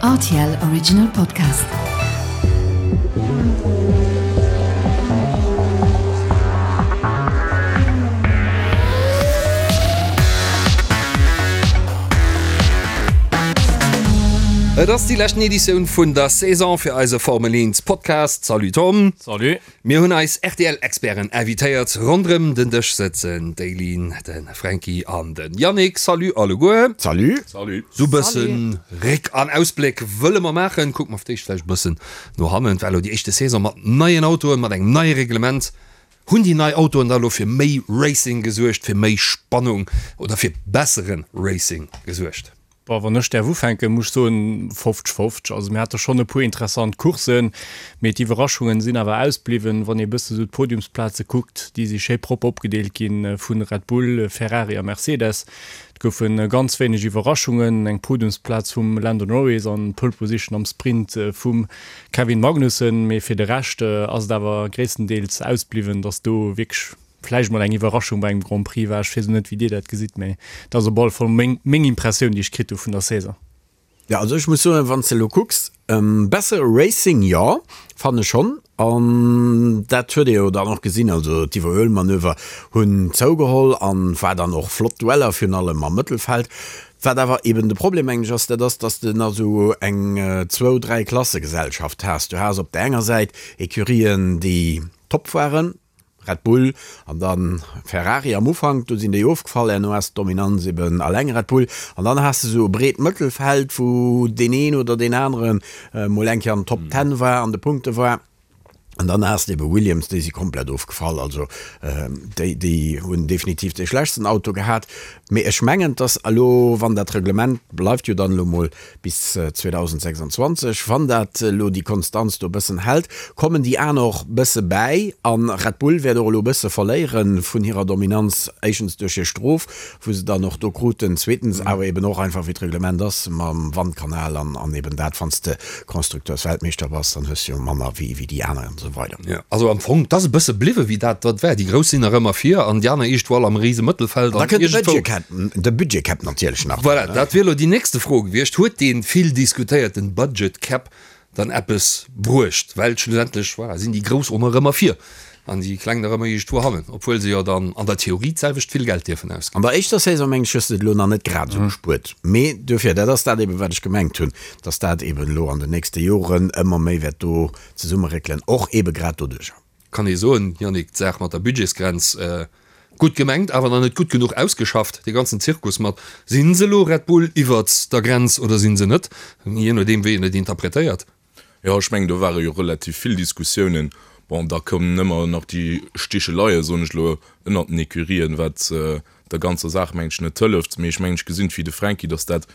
Rtl Original Podcast. Et ass déi leschten Editioun vun der Saison fir eise Formel 1 Podcast. Salut Tom. Salut. Mir hunn eis RTL-Experten invitéiert. Ronderëm den Dësch sëtzen d'Eileen, de Franky an de Yannick. Salut alleguer. Salut. Salut. Sou bëssen Réck an Ausbléck wëlle mer maachen. Kucke mer fir d'éischt vläicht e bëssen no hannen. Et war elo déi éischte Saison mat neien Autoen, mat engem neie Reglement. Hunn déi nei Autoen da elo fir méi Racing gesuergt, fir méi Spannung oder fir bessere Racing gesuergt? Bon, wann ech däerf ufänken, muss ech soen, 50, 50. Also mir hate schonn e puer interessant Courssen, mee d'Iwwerraschungen sinn awer ausbliwwen. Wann ee e bësse sou d'Podiumsplaze kuckt, déi si schéi propper opgedeelt gi vu Red Bull, Ferrari a Mercedes. Et goufe ganz wéineg Iwwerraschungen, eng Podiumsplaz vum Lando Norris an d'Pole Position am Sprint vum Kevin Magnussen, mee fir de Rescht ass et awer gréisstendeels ausbliwwen, datt do wierklech Vläicht mol eng Iwwerraschung bei engem Grand Prix war. Ech weess elo net wéi dir dat gesitt, mee dat ass op alle Fall meng meng Impressioun déi ech kritt hu vun der Saison. Jo, also ech muss soen, wann s de elo kucks, bessere Racing, jo, fannen ech schonn. An dat huet ee jo dann och gesinn, also d'Iwwerhuelmanöver hunn zougeholl an war dann och flott Dueller, virun allem am Mëttelfeld. Wat awer eben de Problem, mengen ech, ass, dat ass, dass de nach esou eng zwou-, dräi-Klasse-Gesellschaft has. Du has op der enger Säit Ecurien, déi top waren, Red Bull an dann Ferrari am Ufank, do sinn déi ofgefall, herno ass d'Dominanz eben alleng Red Bull an dann has de sou e breet Mëttelfeld, wou deen een oder deen anere mol eng Kéier an den Top Ten war, an de Punkte war an dann has de ebe Williams, déi si komplett ofgefall, also déi déi hunn definitiv dee schlechtsten Auto gehat. Mee ech mengen, dass elo, wann dat Reglement bleift jo dann elo mol bis 2026, wann dat elo déi Konstanz do e bëssen hält, kommen déi aner och bësse bäi a Red Bull wäert och elo e bësse verléiere vun hirer Dominanz, éischtens duerch hir Strof, wou se dann och do kruten, zweetens awer eben och einfach wéi d'Reglement ass mam Wandkanal an eben dat, wann s de Constructeursweltmeeschter bass, dann hues de jo manner wéi déi aner an esou weider. Jo, also am Fong, 't ass e bësse bliwwe wéi dat wat war. Déi Grouss sinn nach ëmmer vir an déi aner iergendwou all am rise Mëttelfeld. An da kënnt de Budget Cap, de Budget Cap natierlech nach. Voilà, dat wier elo déi nächste Fro gewiescht. Huet dee vill diskutéierten Budget Cap dann eppes bruecht? Well schlussendlech, voilà, sinn déi Grouss och nach ëmmer vir an déi Kleng nach ëmmer iergendwou hannen, obwuel se jo dann an der Theorie d'selwecht vill Geld dierfen ausginn. An der éischter Saison, mengen ech, hues de et elo nach net grad esou gespuert. Mee duerfir, dat ass dat eben, wat ech gemengt hunn, dass dat eben elo an den nächste Joren ëmmer méi wäert do zesummeréckelen, och eebe grad doduercher. Kann ee soen, Yannick, d'Saach mat der Budgetsgrenz, gutt gemengt, awer nach net gutt genuch ausgeschafft, dee ganzen Zirkus mat, si se elo Red Bull iwwert der Grenz oder si se net, jee nodeem wéi een et interpretéiert. Jo, ech mengen, do ware jo relativ vill Diskussiounen. Bon, da kommen ëmmer nach déi Sticheleie, soen ech elo, ënnert den Ecurien, wat der ganzer Saach, mengen ech, net hëlleft. Mee ech mengen, ech gesinn et wéi de Franky, datt dat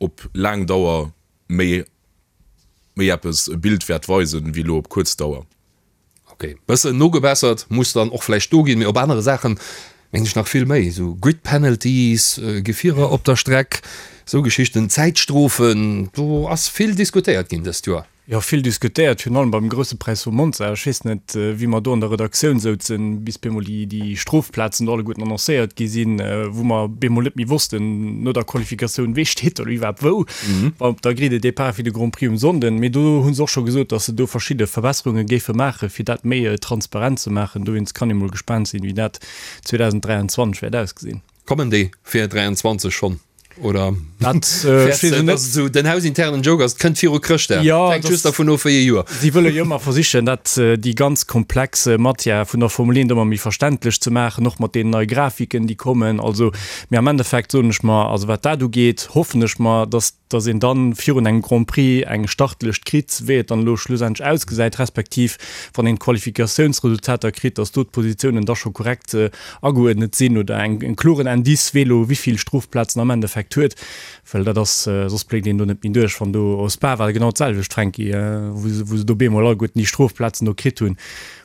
op laang Dauer méi méi eppes e Bild wäert weisen, wéi elo op kuerz Dauer. Ok, bëssen nogebessert muss dann och vläicht do ginn, mee op anere Saachen mengen ech nach vill méi, esou Grid Penalties, Gefierer op der Streck, esou Geschichten, Zäitstrofen, do ass vill diskutéiert ginn dëst Joer. Jo, vill diskutéiert, virun allem beim Grousse Präis vu Monza. Ech weess net, wéi mer do an der Redaktioun souzen, bis bemol déi, déi Strofplazen do alleguerten annoncéiert gi sinn, wou mer bemol net méi wossten no der Qualifikatioun, wee steet do elo iwwerhaapt wou op der Grille de départ fir de Grand Prix um Sonnden. Mee do hu se och scho gesot, datt se do verschidde Verbesserunge géife maachen, fir dat méi transparent ze maachen. Dowéinst kann ee mol gespaant sinn, wéi dat 2023 wäert ausgesinn. Kommen déi fir 23 schonn oder Dat fäerts de, dass et esou den hausinternen Joke ass, et kënnt viru Chrëschtdag, Jo, hänkt just dervun of wéi ee Joer. Si wëlle jo ëmmer versichen, dat déi ganz komplex Matière vun der Formel 1 ëmmer méi verständlech ze maachen, och mat deenen neie Grafiken, déi kommen. Also, mee am Endeffekt soen ech mer, also wat dat ugeet, hoffen ech mer, dass dass een dann virun engem Grand Prix eng Startlëscht kritt, wéi et dann elo schlussendlech ausgesäit, respektiv wann een d'Qualifikatiounsresultater kritt, dass do d'Positiounen da scho korrekt ageuerdnet sinn oder eng en kloren Indice, wee elo wéivill Strofplazen am Endeffekt huet, well dat ass, soss bléckt een do net méi duerch. Wann do, au Spa war et genau d'selwecht, Franky, wou se wou se do bemol alleguerten déi Strofplazen do kritt hunn.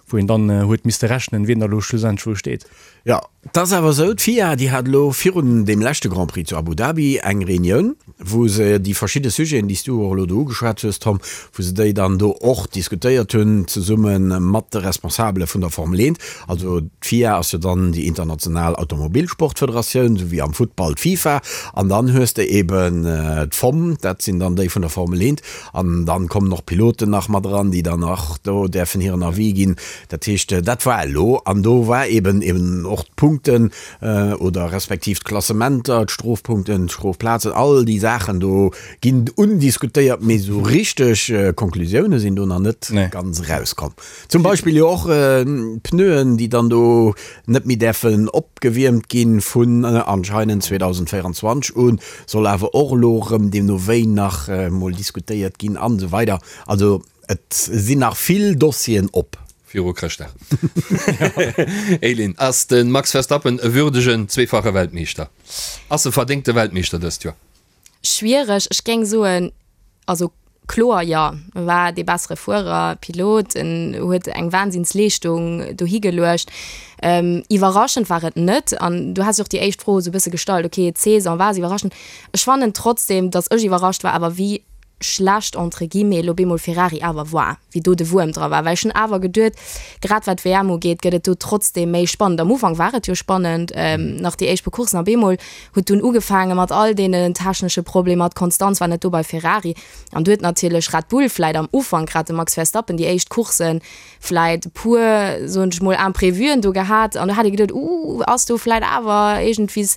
Wou een dann huet misste rechnen, wien da lo schlussendlech wou steet. Jo, et ass awer esou, d'FIA, déi hat elo virun deem leschte Grand Prix zu Abu Dhabi eng Reunioun, wou se déi verschidde Sujeten, déi s du och elo do ugeschwat hues, Tom, wou se déi dann do och diskutéiert hunn, zesumme mat de Responsabele vun der Formel 1. Also d'FIA ass jo dann déi international Automobilsportfederatioun, esou wéi am Futtball d'FIFA. An dann hues de eben d'FOM, dat sinn dann déi vun der Formel 1. An dann kommen och d'Piloten nach mat eran, déi dann och do däerfen hiren Avis ginn. Dat heescht, dat war elo. An do war eben eben och d'Punkten oder respektiv d'Klassementer, d'Strofpunkten, d'Strofplazen, all déi Saachen do ginn undiskutéiert, mee esou richteg Konklusioune sinn do nach net ganz erauskomm. Zum Beispill jo och d'Pneuen, déi dann do net méi däerfen opgewiermt ginn vun anscheinend 2024 un, soll awer och elo erëm deemno wéi nach mol diskutéiert ginn an esou weider. Also et sinn nach vill Dossieren op. Viru Chrëschtdag. Elin, ass de Max Verstappen e würdegen zweefache Weltmeeschter? Ass e verdéngte Weltmeeschter dëst Joer? Schwiereg, ech géing soen, also kloer jo, e war dee bessere Fuerer, Pilot, en huet eng Wahnsinnsleeschtung dohi geluecht. Iwwerraschend war et net an du has jo och déi éischt Fro esou e bësse gestallt, ok d'Saison war se iwwerraschend. Ech fannen trotzdem, datt ech iwwerrascht war awer wéi schlecht entre guillemets elo bemol Ferrari awer war, wéi do de Wuerm dra war, well ech hunn awer geduet, grad wat d'WM ugeet, gëtt et do trotzdem méi spannend. Am Ufank war et jo spannend, nach déi éischt puer Courssen a bemol huet dunn ugefaange mat all deenen technesche Problemer, d'Konstanz war net do bei Ferrari an du huet natierlech Red Bull vläit am Ufank, grad de Max Verstappen, déi éischt Courssen vläit e puer, soen ech mol, Imprevuen do gehat an do hat ee geduet, uh, ass do vläit awer iergendwies,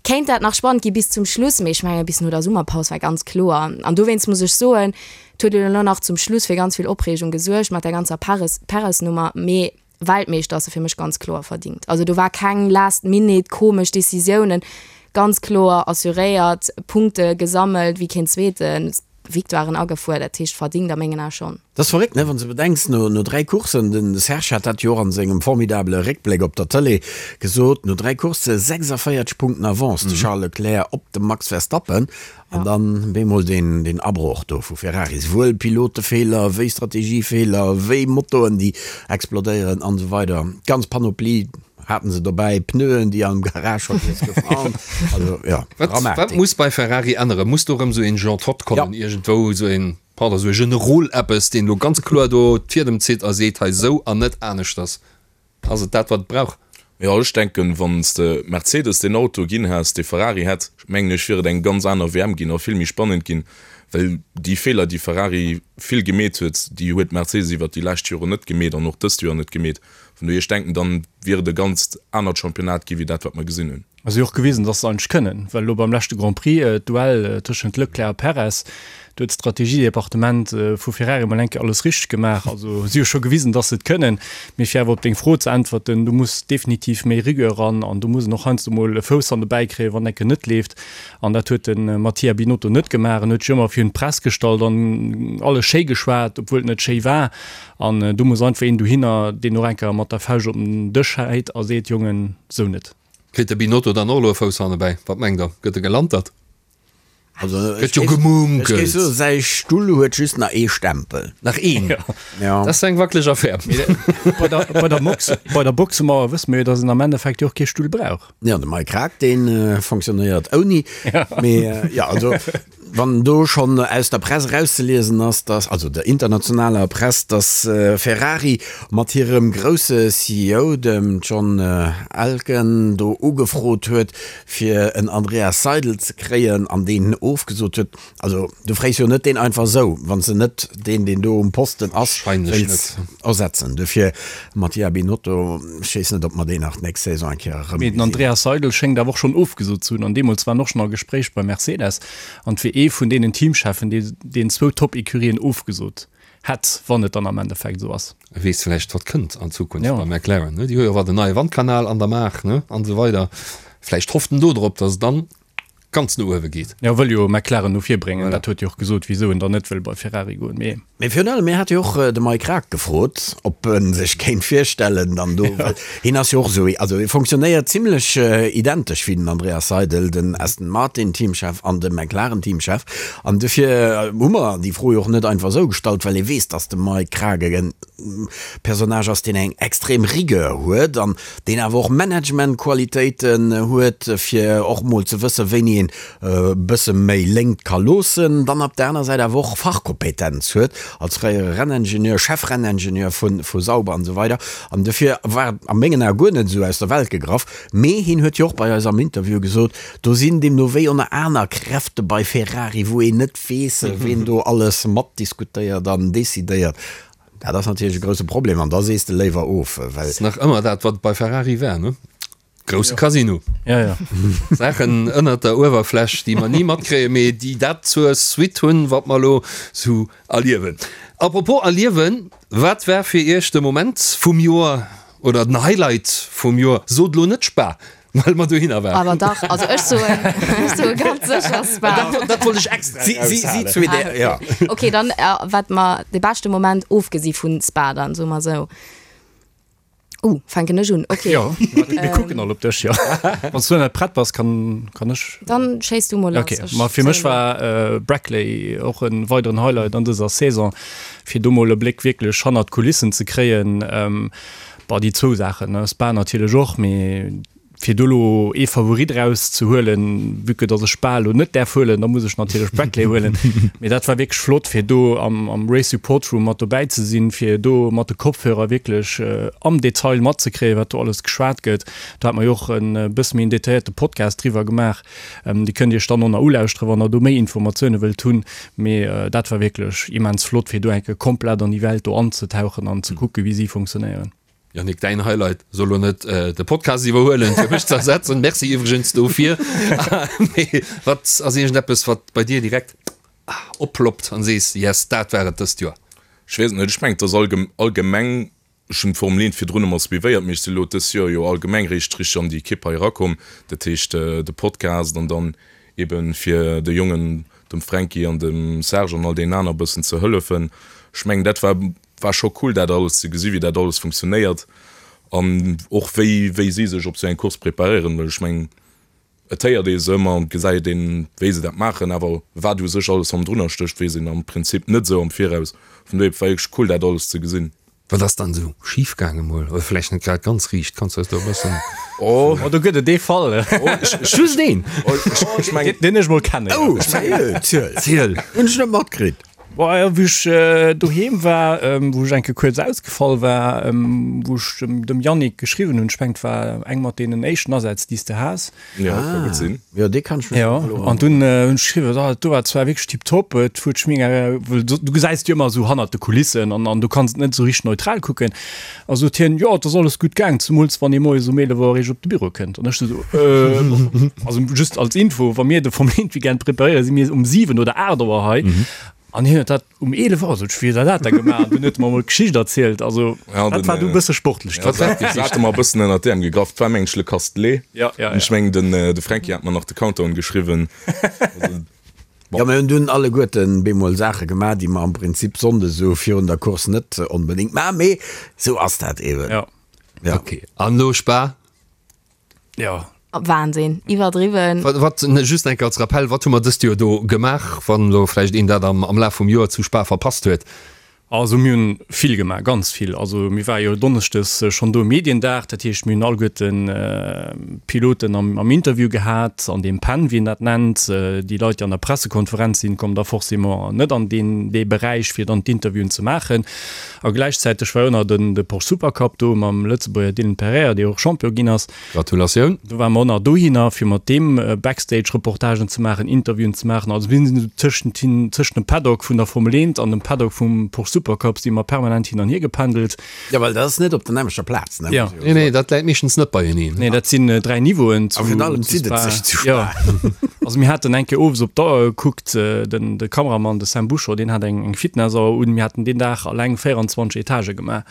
kéint dat nach spannend gi bis zum Schluss, mee ech menge bis no der Summerpaus war ganz kloer an dowéinst muss ech soen, et huet elo nach zum Schluss fir ganz vill Opreegung gesuergt mat der ganzer Perez, Perez-Nummer, mee Weltmeeschter ass e fir mech ganz kloer verdingt. Also do war keng last minute komesch Decisiounen, ganz kloer assuréiert, Punkte gesammelt wéi keen Zweeten, Victoiren agefuer, dat heescht verdingt a mengen Ae schonn. Dat ass verréckt, ne, wann s de bedenks, no no 3 Courssen, den Serge hat dat jo och an sengem formidabele Réckbléck op der Tëlee gesot, no 3 Coursse 46 Punkten Avance de Charles Leclerc op de Max Verstappen an dann bemol deen deen Abroch do vu Ferrari, souwuel Pilotefeeler wéi Strategiefeeler wéi Motoen déi explodéieren an esou weider, d'ganz Panoplie haten se dobäi, Pneuen déi am Garage vergiess goufen an also jo, Wat wat Dramatik. muss bei Ferrari änneren? Muss do erëm esou een Jean Todt kommen, iergendwou esou een, pardon, esou e Generol eppes, deen elo ganz kloer do d'Fiedem zitt a seet, hei esou an net aneschters? Ass et dat wat et brauch? Jo, ech denken, wann s de Mercedes deen Auto ginn häss, dee Ferrari hätt, mengen ech, wier et eng ganz aner WM ginn a vill méi spannend ginn, well déi Feeler, déi Ferrari vill gemeet huet, déi huet Mercedes iwwert déi lescht Joren net gemeet an och dëst Joer net gemeet. Vun dohier, ech denken, dann wier et e ganzt anert Championnat gi wéi dat, wat mer gesinn hunn. A si hu och gewisen, dass se eigentlech kënnen, well elo beim leschte Grand Prix, d'Duell tëschent Leclerc a Perez, do huet d'Strategiedepartement vu Ferrari emol eng Kéier alles richteg gemaach. Also si hu scho gewisen, dass se et kënnen. Mee fir awer op deng Fro ze äntwerten, do muss definitiv méi Rigueur eran an do muss en och heiansdo mol e Fouss an de Bäi kréien, wann enke net leeft. An dat huet de Mattia Binotto net gemaach. En huet sech ëmmer virun d'Press gestallt an alles schéi geschwat, obwuel et net schéi war. An do muss einfach een dohinner, deen och eng Kéier mat der Fauscht op den Dësch häit a seet, Jongen, sou net. Kritt de Binotto dann och elo e Fouss hannebäi? Wat mengt der? Gëtt e gelantert? Also, Gëtt jo gemunkelt. Ech géif soen, säi Stull huet just nach ee Stempel. Nach een? Ja. Dat ass eng wackeleg Affär. Bei der, bei der Mox, bei der Boxemauer wësse mir jo, datt en am Endeffekt jo och kee Stull brauch. Ja, de Mike Krack, dee fonctionnéiert ouni. Mee ja, also Wann do schonn aus der Press erauszeliesen ass, dass, also der internationaler Press, dass Ferrari mat hirem grousse CEO, dem John Elkann, do ugefrot huet, fir en Andreas Seidl ze kréien an deen ofgesot huet, also du fréis jo net deen einfach esou, wann s de net deen, deen do um Posten ass, wéilts ersetzen. Dofir Mattia Binotto, ech weess net, ob mer deen nach d'nächst Saison eng Kéier erëm. Mee den Andreas Seidl schéngt awer och schonn ofgesot ze hunn an deemools war en och schonn a Gespréich bei Mercedes an et wier ee vun deenen Teamcheffen, dee deen zwou Top-Ecurien ofgesot hätt, wann et dann am Endeffekt esou ass. E weess vläicht, wat kënnt an Zukunft bei McLaren, ne? Déi hu jo och den neie Wandkanal an der Maach, ne, an esou weider. Vläicht hofft en do drop, datt et dann ganz no uewe geet. Jo, wëll jo McLaren no vir bréngen. Dat huet jo och gesot, wisou en dann net wëll bei Ferrari goen. Mee. Mee virun allem, mir hate jo och de Mike Rack gefrot, ob e sech kéint virstellen, dann do, well hien ass jo och esou, also e fonctionnéiert zimlech identesch wéi den Andreas Seidl, den Aston Martin Teamchef an de McLaren Teamchef. An dofir hu mer déi Fro jo och net einfach esou gestallt, well ee weess, datt de Mike Krack e Personnage ass, deen eng extrem Rigueur huet an deen awer och Managementqualitéiten huet, fir och mol ze wëssen, wéini een e bësse méi Léngt ka loossen, dann op der aner Säit awer och Fachkompetenz huet als fréiere Renningenieur, Chefrenningenieur vu Sauber an esou weider. An dofir war et a mengen Ae guer net esou aus der Welt gegraff. Mee hien huet jo och bei eis am Interview gesot, do sinn deemno wéi oner aner Kräfte bei Ferrari, wou een net weess, ween do alles matdiskutéiert an decidéiert. Dat ass natierlech e grousse Problem an da sees de léiwer of, well. Ass nach ëmmer dat, wat bei Ferrari war, ne? Grousse Casino. Ja, ja. Saachen ënnert der Uewerfläch, déi mer ni matkréien, mee déi dat zur Suite hunn, wat mer elo sou erliewen. Apropos erliewen, wat war fir Iech de Moment vum Joer oder den Highlight vum Joer? Sot elo net Spa, well mer dohinner waren. Awer dach, also ech soen, ech soe ganz sécher Spa. Dat, dat wollt ech extra Si, si, si eraushalen. zwee, der, ja. Okay, dann wat mer de beschte Moment, ofgesi vun Spa dann, soe mer sou. Uh, fänken ech un? Okay. Jo, mir kucken all op dech, jo. Wann s du net prett bass, kann, kann ech. Dann schéiss du mol lass. Okay, ma fir mech war äh, Brackley och en weideren Highlight an dëser Saison, fir do mol e Bléck wierklech hannert d'Kulissen ze kréien. Ähm, bah, déi zwou Saachen, ne, Spa natierlech och, mee Fir do elo ee Favorit eraus ze huelen, vue que dass ech Spa elo net däerf huelen, da muss ech natierlech Brackley huelen. Mee dat war wierklech flott, fir do am am Race Support Room mat dobäi ze sinn, fir do mat de Kopfhörer wierklech am Detail matzekréien, wat do alles geschwat gëtt. Do hate mer jo och e bësse méi en detailléierte Podcast driwwer gemaach. Dee kënnt Iech dann och nach ulauschteren, wann Der do méi Informatioune wëllt hunn. Mee dat war wierklech immens flott, fir do eng Kéier komplett an déi Welt do anzetauchen an ze kucken, wéi si funktionéieren. Yannick, däin Highlight soll lo net de Podcast iwwerhuelen, fir mech ze ersetzen. Merci iwwregens dofir. Mee wat ass iergendeppes, wat bei dir direkt opploppt an sees, Yes, dat war et dëst Joer? Ech weess et net. Ech mengen, et ass allgemeng, ech hunn d'Formel 1 virdrun ëmmer suivéiert, mee ech si lo dës Joer jo allgemeng réischt richteg an déi Ekipp hei erakomm. Dat heescht, de Podcast an dann eben fir de Jongen, dem Fränki an dem Serge an all deenen aner e bëssen ze hëllefen. Ech mengen, dat war War scho cool dat alles ze gesi wéi dat alles funktionéiert an och wéi wéi si sech op sou eng Course preparéieren, well ech mengen et héiert ee se ëmmer an et gesäit een wéi se dat maachen, awer wat u sech alles hannendrunner stécht weess een am Prinzip net sou am Viraus. Vun dohier war wierklech cool dat alles ze gesinn. Wat ass dann esou schif gaange mol, oder vläicht net grad ganz riicht, kanns du eis do e bëssen. Oh, do gëtt et ee Fall. Just een? Ech mengen deen ech mol kennen. Oh, seriö? Ziel. Ziel. Hunn ech net matkritt. Boah, wéi ech doheem war, wou ech eng Kéier kuerz ausgefall war, wou ech dem Yannick geschriwwen hunn, ech mengen et war eng mat deenen éischten Asätz déi s de has. Ja, ka gutt sinn. Jo, dee kann ech mech Jo, elo an dunn hunn ech geschriwwen, ah, dat do war zwar wierklech tiptop, et huet sech mega, well du gesäis et jo ëmmer esou hannert de Kulissen an an du kanns et net esou richteg neutral kucken. A sot hien, jo, et ass alles gutt gaang, zemools wann ee moies um 11 Auer eréischt op de Büro kënnt. An ech sou, äh, also just als Info, wa mir de Formel 1 Weekend preparéieren, si mir um 7 oder 8 Auer hei. An hien huet dat um 11 Auer, sot ech, wéi huet der dat da gemaach? An dunn huet e mer emol d'Geschicht erzielt. Also Ja, dat den, war du e bësse sportlech. Ja, dat hate mer e bëssen ënnert d'Äerm gegraff. Et war mengen ech Le Castelet. Ja, ja, An ech ja. mengen den, de Fränki hat mer nach de Countdown geschriwwen. Also, Jo, mir hunn dunn alleguerten bemol Saache gemaach, déi mer am Prinzip sonndes esou virun der Course net onbedéngt maachen, mee esou ass dat eeben. Ja. Ja. Ok, an elo Spa? Ja. Wahnsinn, iwwerdriwwen. Wat, wat, just eng Kéier als Rappell, wat hu mer dëst Joer do gemaach, wann elo vläicht een dat am, am Laf vum Joer zu Spa verpasst huet? Also mir hunn vill gemaach, ganz vill. Also mir ware jo donneschdes schonn do um Mediendag, dat heescht mir hunn alleguerten d'Piloten am am Interview gehat, an deem Pen, wéi een dat nennt. Déi Leit, déi an der Pressekonferenz sinn, kommen da forcément net an deen dee Beräich, fir dann d'Interviewen ze maachen. A gläichzäiteg war jo nach den de Porsche Supercup do mam Lëtzebuerger Dylan Pereira, dee och Champion ginn ass. Gratulatioun! Do ware mer och nach dohinner, fir mat deem Backstage-Reportagen ze maachen, Interviewen ze maachen. Also mir sinn tëschent hin, tëschent dem Paddock vun der Formel 1 an dem Paddock vum Porsche Supercup si mer permanent hin an hier gependelt. Jo, well dat ass net op der nämmlechter Plaz, ne? Jo. Nee, nee, dat läit meeschtens net beieneen. Nee, dat sinn 3 Niveauen zu A virun allem zu zitt et Spa. sech zu Spa. Jo. Also mir haten eng Kéier owes op d'Auer gekuckt, den de Kameramann, de Sam Bouchot, deen hat eng eng Fitnessauer un. Mir haten deen Dag alleng 24 Etagë gemaach.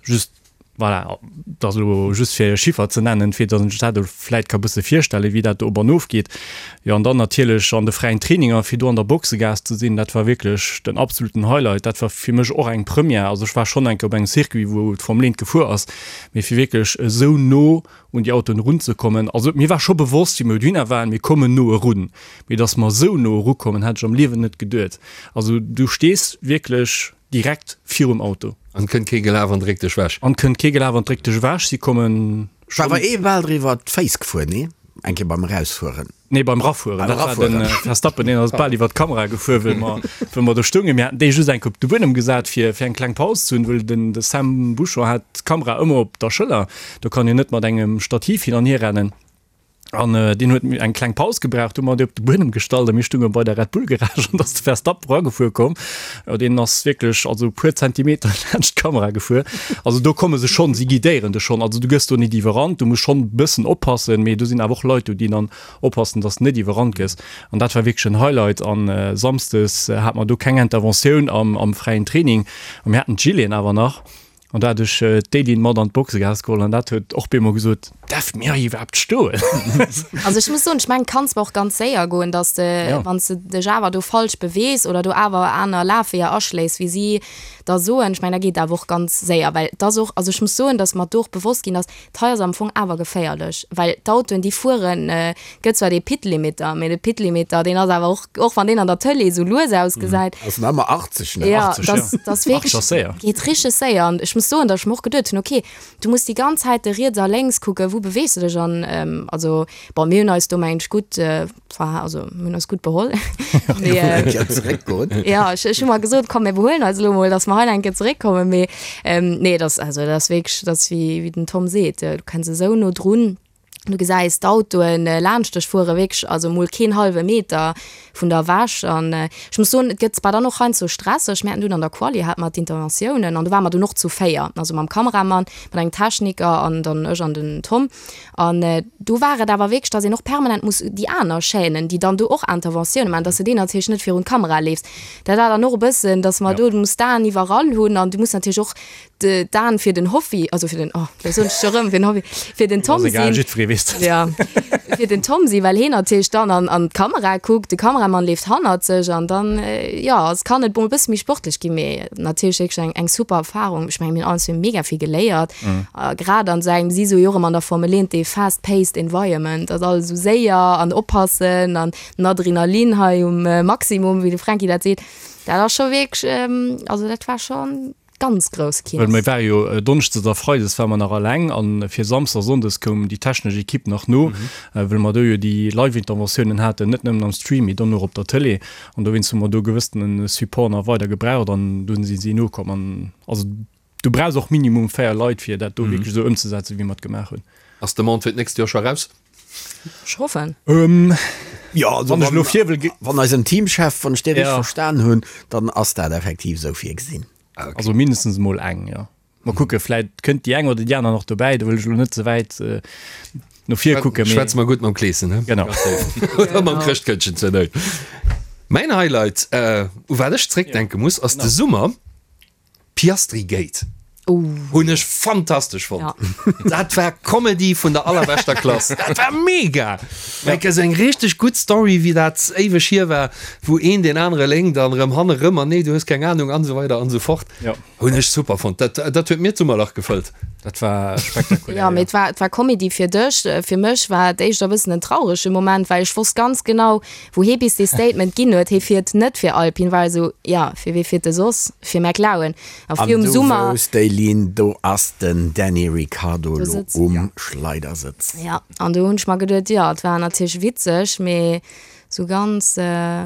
Just. Voilà, dat ass elo just fir e Chiffer ze nennen, fir datt een sech dat elo vläit ka bësse virstellen, wéi dat do op an of geet. Jo, an dann natierlech an de fräien Traininger, fir do an der Boxegaass ze sinn, dat war wierklech den absoluten Highlight. Dat war fir mech och eng Première. Also ech war schonn eng Kéier op engem Circuit, wou d'Formel 1 gefuer ass, mee fir wierklech esou no un déi Autoen erunzekommen, also mir war scho bewosst, wéi mir dohinner waren, mir kommen no erun, mee datt mer esou no erukommen, hätt ech am Liewen net geduet. Also du stees wierklech Direkt virum Auto. An kënnt kee gelaf an dréckt dech wech. An kënnt kee gelaf an dréckt dech ewech. Si kommen schonn. War awer ee bal driwwer d'Féiss gefuer, nee? Eng Kéier beim Erausfueren. Nee, beim Rafueren. Beim Rafueren. Dat war de Verstappen, deen ass bal iwwer d'Kamera gefuer, wëll mer, wëll mer do stoungen. Mir haten dee just eng Kéier op de Buedem gesat, fir, fir eng kleng Paus ze hunn, wëll den, de Sam Bouchon hat d'Kamera ëmmer op der Schëller. Do kann een net mat engem Stativ hin an hier rennen. An deen huet eng kleng Paus gebraucht, hu mer dee op de Buedem gestallt a mir stounge bei der Red Bull Garage an da ass de Verstappen eragefuer komm. Jo, deen ass wierklech also e puer Zentimeter laanscht d'Kamera gefuer. Also do komme se schonn, si guidéieren dech schonn. Also du gëss do net iwwerrannt, du muss schonn e bëssen oppassen, mee do sinn awer och Leit do, déi dann oppassen, dass de net iwwerrannt gëss. An dat war wierklech en Highlight. An samsdes hate mer do keng Interventioun am fräien Training a mir haten d'Gileten awer nach. An da hat ech d'Éline mat an d'Boxegaass geholl an dat huet och bemol gesot, Därf mir hei iwwerhaapt stoen? Also ech muss soen, ech mengen, et kann zwar och ganz séier goen, dass de, wann s de dech awer do falsch bewees oder do awer aner Lafweeër aschléis, wéi si da soen, ech mengen, da geet et awer och ganz séier. Well et ass och, also ech muss soen, dass mer do och bewosst ginn ass, D'hei ass am Fong awer geféierlech, well d'Autoen, déi fueren, gëtt zwar dee Pit-Limiter, mee de Pit-Limiter, deen ass awer och, och wann deen an der Tëlee esou lues ausgesäit. Ass nach ëmmer 80, ne? Jo, dat ass wierklech, geet richteg séier. An ech muss soen, datt ech mer och geduet hunn, okay, du muss déi ganz Zäit riets a lénks kucken, wou beweegs de dech an also bon, mir hunn eis do mengen ech gutt Enfin, also mir hunn eis gutt beholl. Mee, äh, Eng Kéier zeréckgoen. ja, ech, ech hu mer gesot, komm, mir behuelen eis elo mol, dass mer hei eng Kéier zeréckkommen. Mee ähm, nee, das, also, dat ass wierklech, dat ass wéi, wéi den Tom seet, du kenns esou no drun. Du gesäis d'Autoen äh, laanscht dech fuere, wierklech, also mol keen hallwe Meter vun der ewech. An äh, ech muss soen, et gëtt zwar dann och heiansdo stresseg, mir haten dunn an der Quali hate mer d'Interventiounen an do ware mer dunn och zu 4, also mam Kameramann, mat engem Techniker an dann ech an den Tom. An do war et awer wierklech, dass een och permanent muss déi aner Chaînen, déi dann do och Interventioune maachen, dass de deenen natierlech net virun d'Kamera leefs. Dat war dann och e bëssen, dass mer do, du muss d'Aen iwwerall hunn an du muss natierlech och d'Aen fir den Hoffi, also fir den, oh, lo soen ech scho rëm, fir den Hoffi, fir den Tom sinn. Jiddweree weess dat. Ja, fir den Tom sinn, well heen natierlech dann an, an d'Kamera kuckt, de Kameramann leeft hannert sech an dann, jo, es kann et mol e bësse méi sportlech ginn, mee natierlech wierklech eng, eng super Erfarung. Ech mengen, mir hunn alles mega vill geléiert. A grad an esou engem, si soe jo och ëmmer an der Formel 1, dee fast-paced environment, ass alles esou séier an oppassen an den Adrenalin hei um Maximum, wéi de Franky dat seet. Dat ass scho wierklech, also dat war scho ganz grouss Well Kino. mir ware jo Donneschdes a Freides ware mer nach alleng an fir Samsdes a Sonndes koum déi technesch Equipe nach no, well mer do jo déi Live-Interventiounen haten, net nëmmen am Stream, mee dann och op der Tëlee. An dowéinst hu mer do gewëssene Support nach weider gebraucht an dunn si si nokomm. An also Du brauchs och minimum 4 Leit fir dat do wierklech esou ëmzesetzen wéi mer et gemaach hunn. Ass d'Demande fir d'nächst Joer scho raus? Ech hoffen. Jo, also Wann ech elo vir wëll ge. Wann eisen Teamchef, wann ech dee richteg Ja. verstan hunn, dann ass dat effektiv esou virgesinn. Also mindestens emol eng, jo. Mer kucke, vläit kënnt déi eng oder déi aner nach dobäi, do wëll ech elo net ze wäit no vir kucken, mee. Schwätze mer gutt mam Kleeschen, he? Genau. Oder mam Chrëschtkëndchen zur Nout. Mäin Highlight, u wat ech zréckdenke muss, ass de Summer. Piastri Gate hunn ech fantastesch fonnt. Ja. Dat war Comedy vun der allerbeschter Klass. Dat war mega! Like esou eng richteg gutt Story, wéi dat éiweg hier war, wou een deen anere lénkt an erëm hanne rëm an nee, du hues keng Ahnung an esou weider an esou fort. Ja. Hunn ech super fonnt. Dat, dat huet mir d'Summerlach gefëllt. Dat war spektakulär. Ja, mee et war, et war Comedy fir dech. Fir mech war et éischter e bëssen en traurege Moment, well ech wosst ganz genau, Wou hee bis dee Statement ginn huet, hee fiert net fir Alpine, war esou, jo, fir wee fiert e soss? Fir McLaren. A An virum du Summer. wousst, Eileen, do ass den Danny Ricciardo Do elo sëtzt. um Schleidersëtz. Ja, an do hunn ech mer geduet, jo, et war natierlech witzeg, mee sou ganz,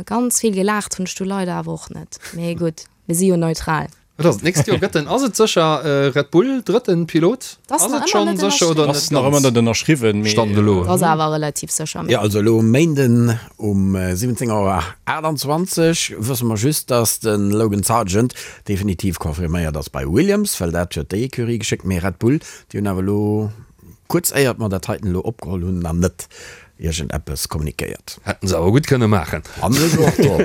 ganz vill gelaacht hunn ech du leider awer och net. Mee gutt, mir si jo neutral. Wat ass et d'nächst Joer? Gëtt en, ass et sécher Red Bull drëtten Pilot? Ass Ass nach et ëmmer schonn net sécher oder Ass net nach ëmmer ganz? net ënnerschriwwen, mee. Stand elo. Ass awer relativ sécher, mee. Jo, also elo um Méinden um 17 Auer 28 wësse mer just, dass de Logan Sargeant definitiv confirméiert ass bei Williams, well dat huet déi Ecurie geschéckt. Mee Red Bull, déi hunn awer elo kuerz éiert mer dat heiten elo opgeholl hunn, nach net iergend eppes kommunikéiert. Hätten se awer gutt kënne maachen. An ech och do.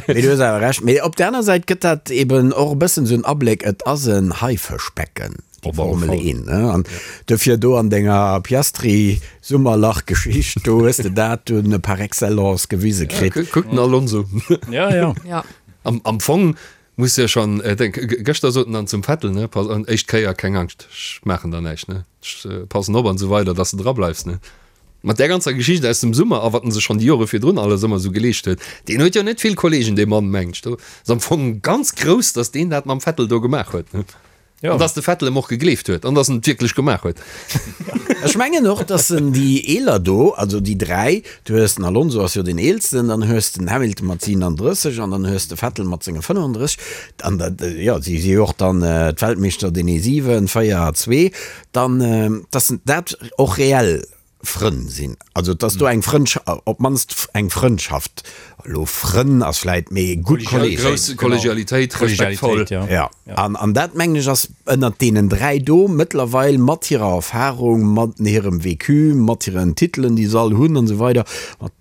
Mee du hues awer Recht. Mee op der aner Säit gëtt dat eben och e bëssen esou en Abléck, et ass en Haifëschbecken. Déi Formel 1, ne? An dofir do an denger Piastri-Summerlach-Geschicht, do hues de dat dunn par excellence gewise kritt. Kuck den Alonso. Ja, ja. Ja. Am, am Fong muss jo schon, äh, denk, gëschter sot en dann zum Vettel, ne, pass, an éischt Kéier, keng Angscht, ech maachen der näischt, ne, ech passen op an esou weider, dass de dra bleifs, ne. Mat där ganzer Geschicht aus dem Summer a wat en sech schonn déi Jore virdrun alles ëmmer esou geleescht huet, deen huet jo net vill Kollegen, dee Mann, mengt ech. Do ass am Fong ganz grouss, dass deen dat mam Vettel do gemaach huet, ne. Ja. An dass de Vettel em och gegleeft huet an dass en et wierklech gemaach huet. Ech mengen och, dass en déi Eeler do, also déi 3, du hues den Alonso ass jo deen Eelsten, dann hues den Hamilton mat 37 an dann hues de Vettel mat senge 35, an dat, jo, si si jo och dann d'Weltmeeschter, deen ee 7, 4, 2, dann, dass dat och reell Frënn sinn, also dass do eng Frëndsch, op d'mannst eng Frëndschaft, elo Frënn ass vläit, mee gutt Kolleegen. Grouss Kollegialitéit, respektvoll. Jo, an, an dat mengen ech ass ënnert deenen 3 do mëttlerweil mat hirer Erfahrung, mat hirem Vécu, mat hiren Titelen déi se all hunn an esou weider, mat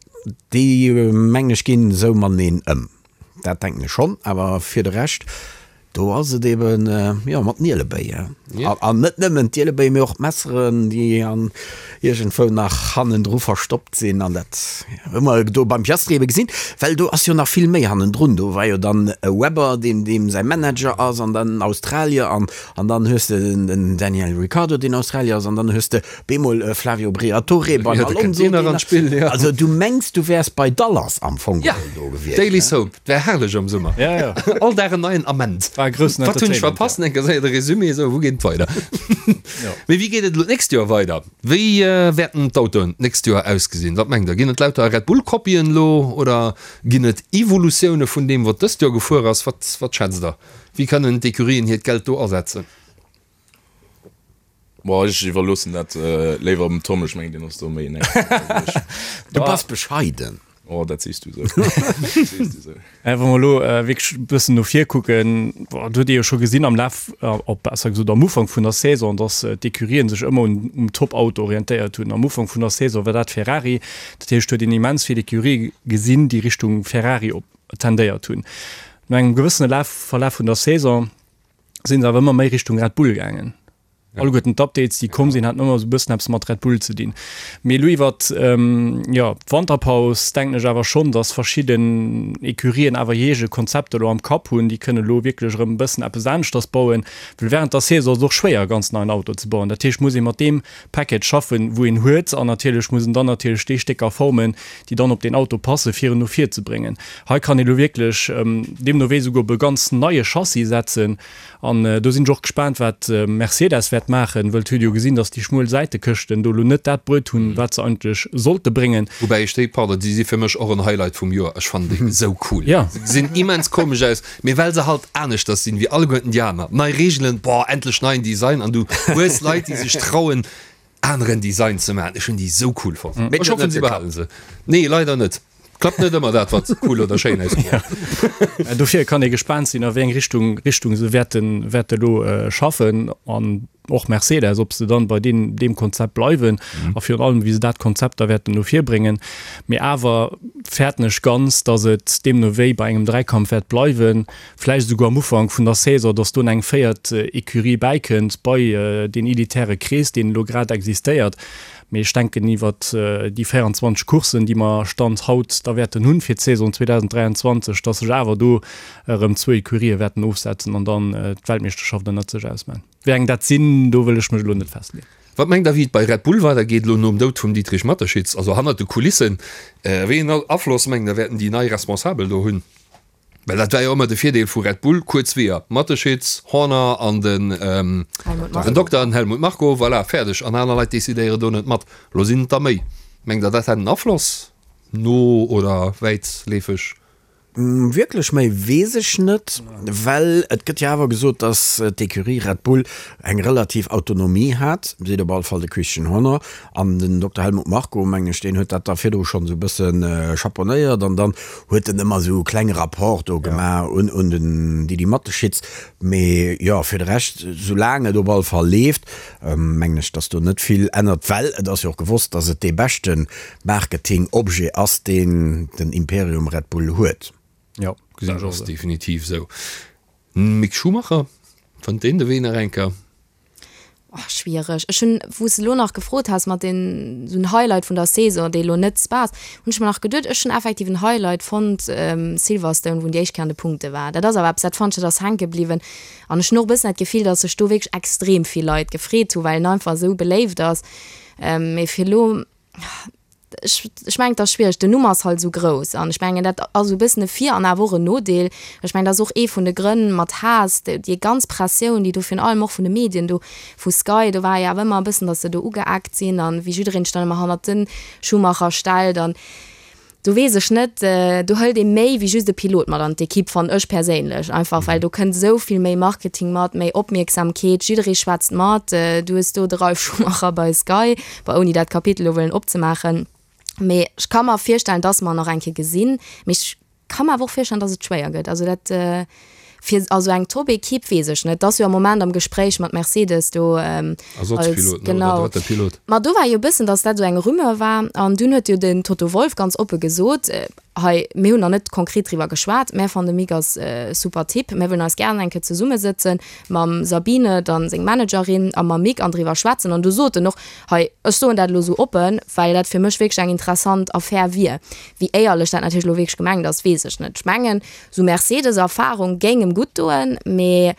déi mengen ech ginn esou mateneen ëm. Dat denken ech schonn, awer fir de Rescht, do ass et eben, jo, mat den Ielebéi. An net nëmmen d'Ielebéi, mee och d'Messeren, déi an iergendwou nach hannendru verstoppt sinn. An dat hu mer do beim Piastri ebe gesinn, well do ass jo nach vill méi hannendrun. Do war jo dann e Webber, deen deem säi Manager ass, an dann en Australier, an an dann hues de den Daniel Ricciardo, deen Australier ass, an dann hues de Bemol e Flavio Briatore beim Alonso, deen nach, also du mengs du wäers bei Dallas am Fong geholl do gewiescht. Daily Soap, et wär herrlech am Summer. All Dag en neien Ament. War e groussen Wat hunn ech Entertainment, verpasst? Eng Kéier de Resumé, esou, wou geet et weider? Mee wéi geet et elo d'nächst Joer weider? Wéi wäerten d'Autoen d'nächst Joer ausgesinn? Wat mengt der? Ginn et lauter Red Bull Kopien elo oder ginn et Evolutioune vun deem wat dëst Joer gefuer ass? Wat wat schätzt der? Wéi kënnen d'Ecurien hiert Geld do asetzen? Boah, ech iwwerloossen dat léiwer dem Tom, ech mengen deen ass do méi en Expert wéi ech. Du bass bescheiden. Oh, dat sees du esou. Dat sees du esou. Wa mer elo wierklech e bëssen no vir kucken, boah, do huet ee jo scho gesinn am Laf, op besser gesot am Ufank vun der Saison, datt d'Ecurien sech ëmmer un um Top-Auto orientéiert hunn. Am Ufank vun der Saison war dat Ferrari, dat heescht, huet een immens vill Ecurië gesinn, déi Richtung Ferrari op tendéiert hunn. No engem gewëssene Laf, Verlaf vun der Saison, sinn se awer ëmmer méi Richtung Red Bull gaangen. Alleguerten d'Updates, déi komm sinn, haten ëmmer esou e bëssen eppes mat Red Bull ze dinn. Mee elo iwwert, jo, d'Wanterpaus denken ech awer schonn, datt verschidden Ecurien awer hir eege Konzepter elo am Kapp hunn. Déi kënnen elo wierklech erëm e bëssen eppes aneschters bauen, well wärend der Saison ass et och schwéier, e ganz neien Auto ze bauen. Dat heescht, muss ee mat deem Package schaffen, wou een huet an natierlech muss en dann natierlech déi Stécker formen, déi dann op deen Auto passen, fir en no vir ze bréngen. Hei kann ee lo wierklech deemno wéi souguer op e ganz neie Chassis setzen an do sinn ech och gespaant, wat Mercedes wäert maachen, wëll et huet ee jo gesinn, datt déi schmuel Säitekëschten do lo net dat bruet hunn, wat se eigentlech sollte bréngen. Woubäi ech déi, pardon, déi si fir mech och en Highlight vum Joer. Ech fannen déi esou cool. Se gesinn immens komesch aus, Mee well se halt aneschters sinn wéi alleguerten déi aner. Nei Reegelen, boah, endlech neien Design an du hues Leit déi sech trauen aneren Design ze maachen. Ech hunn déi sou cool fonnt. Mee Ech hoffen se behalen se. Nee leider net. Klappt net ëmmer dat wat cool oder schéin ausgesäit. Dofir kann ee gespaant sinn a wéi eng Richtung Richtung se wäerten wäerte lo schaffen an och Mercedes, ob se dann bei deem deem Konzept bleiwen a virun allem wéi se dat Konzept da wäerten no vir bréngen. Mee awer fäerten ech ganz, datt et deemno wéi bei engem Dräikampf wäert bleiwen, vläicht esouguer am Ufank vun der Saison, datt do eng véiert Ecurie bäikënnt bei deen elitäre Krees, deen elo grad existéiert. Mee ech denken, iwwert déi 24 Courssen, déi mer Stand haut da wäerten hunn fir d'Saison 2023, datt sech awer do erëm zwou Ecurië wäerten ofsetzen an dann d'Weltmeeschterschaft ënnert sech ausman. Wéi eng dat sinn, do wëll ech mech elo net festleeën. Wat mengt der wéi et bei Red Bull weider geet elo nom Doud vum Dietrich Mateschitz, also hannert de Kulissen? Wéi een Afloss mengt der wäerten déi nei Responsabel do hunn? Well dat war jo ëmmer de Virdeel vu Red Bull, kuerz Weeër, Mateschitz, Horner an den den Dokter, den Helmut Marko, voilà, fäerdeg an aner Leit decidéieren do net mat. Elo sinn et der méi. Mengt der dat hätt en Afloss no oder wäitleefeg? Wierklech méi weess ech net, well et gëtt jo awer gesot, datt d'Ecurie Red Bull eng relativ Autonomie hat, seet op alle Fall de Christian Horner. An den Dokter Helmut Marko, mengen ech, deen huet dat da virdru schonn esou e bësse chaponéiert an dann huet en ëmmer esou e klenge Rapport do gemaach un un den Didi Mateschitz. Mee jo, fir de Rescht, soulaang et op alle Fall leeft, mengen ech, datt do net vill ännert, well et ass jo och gewosst, datt et dee beschte Marketing-Objet ass, deen den Imperium Red Bull huet. Jo, gesinn ech och esou. Definitiv esou. Mick Schumacher, fënnt deen de Wee nach eng Kéier? Oh, schwiereg. Ech hunn, wou s de elo nach gefrot has mat den, esou en Highlight vun der Saison, dee elo net Spa ass, hunn ech mer nach geduet, ech hunn effektiv en Highlight fonnt, Silverstone, wou en déi éischt Kéier an de Punkte war. Dat ass awer eppes, dat fannt ech, dat ass hänke bliwwen. An ech hunn och e bëssen dat Gefill, datt sech do wierklech extrem vill Leit gefreet hu, well en einfach esou beléift ass. Mee fir elo, Ech, ech mengen, et ass schwiereg. Den Numm ass halt esou grouss an ech mengen, dat ass esou e bëssen e Vir an awer och en Nodeel. Ech mengen, dat ass och ee vun de Grënn mat Haas, déi ganz Pressioun, déi do virun allem och vun de Medien do, vu Sky, do war jo awer ëmmer e bëssen, datt se do ugeeckt sinn an wéi jiddereen sech dann ëmmer hannert de Schumacher stellt an do weess ech net, do hëlt ee méi wéi just e Pilot mat an d'Ekipp, fannen ech perséinlech einfach, well do kënnt esou vill méi Marketing mat, méi Opmierksamkeet, jidderee schwätzt mat, du hues do de Ralf Schumacher bei Sky, bon ouni dat Kapitel elo wëllen opzemaachen, mee ech ka mer virstellen, dass mer en nach eng Kéier gesinn, mee ech ka mer awer och virstellen, dass et schwéier gëtt, also dat fir also eng Top-Ekipp weess ech net, et ass jo am Moment am Gespréich mat Mercedes do als, Ersatzpilot, ne, oder genau. drëtte Pilot. Ma do war jo e bëssen, dass dat esou eng Rumeur war an dunn huet jo den Toto Wolff ganz oppe gesot, hei mir hunn nach net konkret driwwer geschwat, mä fannen de Mick ass e super Typ, mir wëllen eis gären eng Kéier zesummesëtzen mam Sabine, dann seng Managerin, a mam Mick an driwwer schwätzen an du sot en och, Hei, ech soen dat elo esou oppen, well dat fir mech wierklech eng interessant Affär wier. Wéi éierlech dat natierlech elo wierklech gemengt ass, weess ech net. Ech mengen, esou Mercedes-Erfarung géing em gutt doen, mee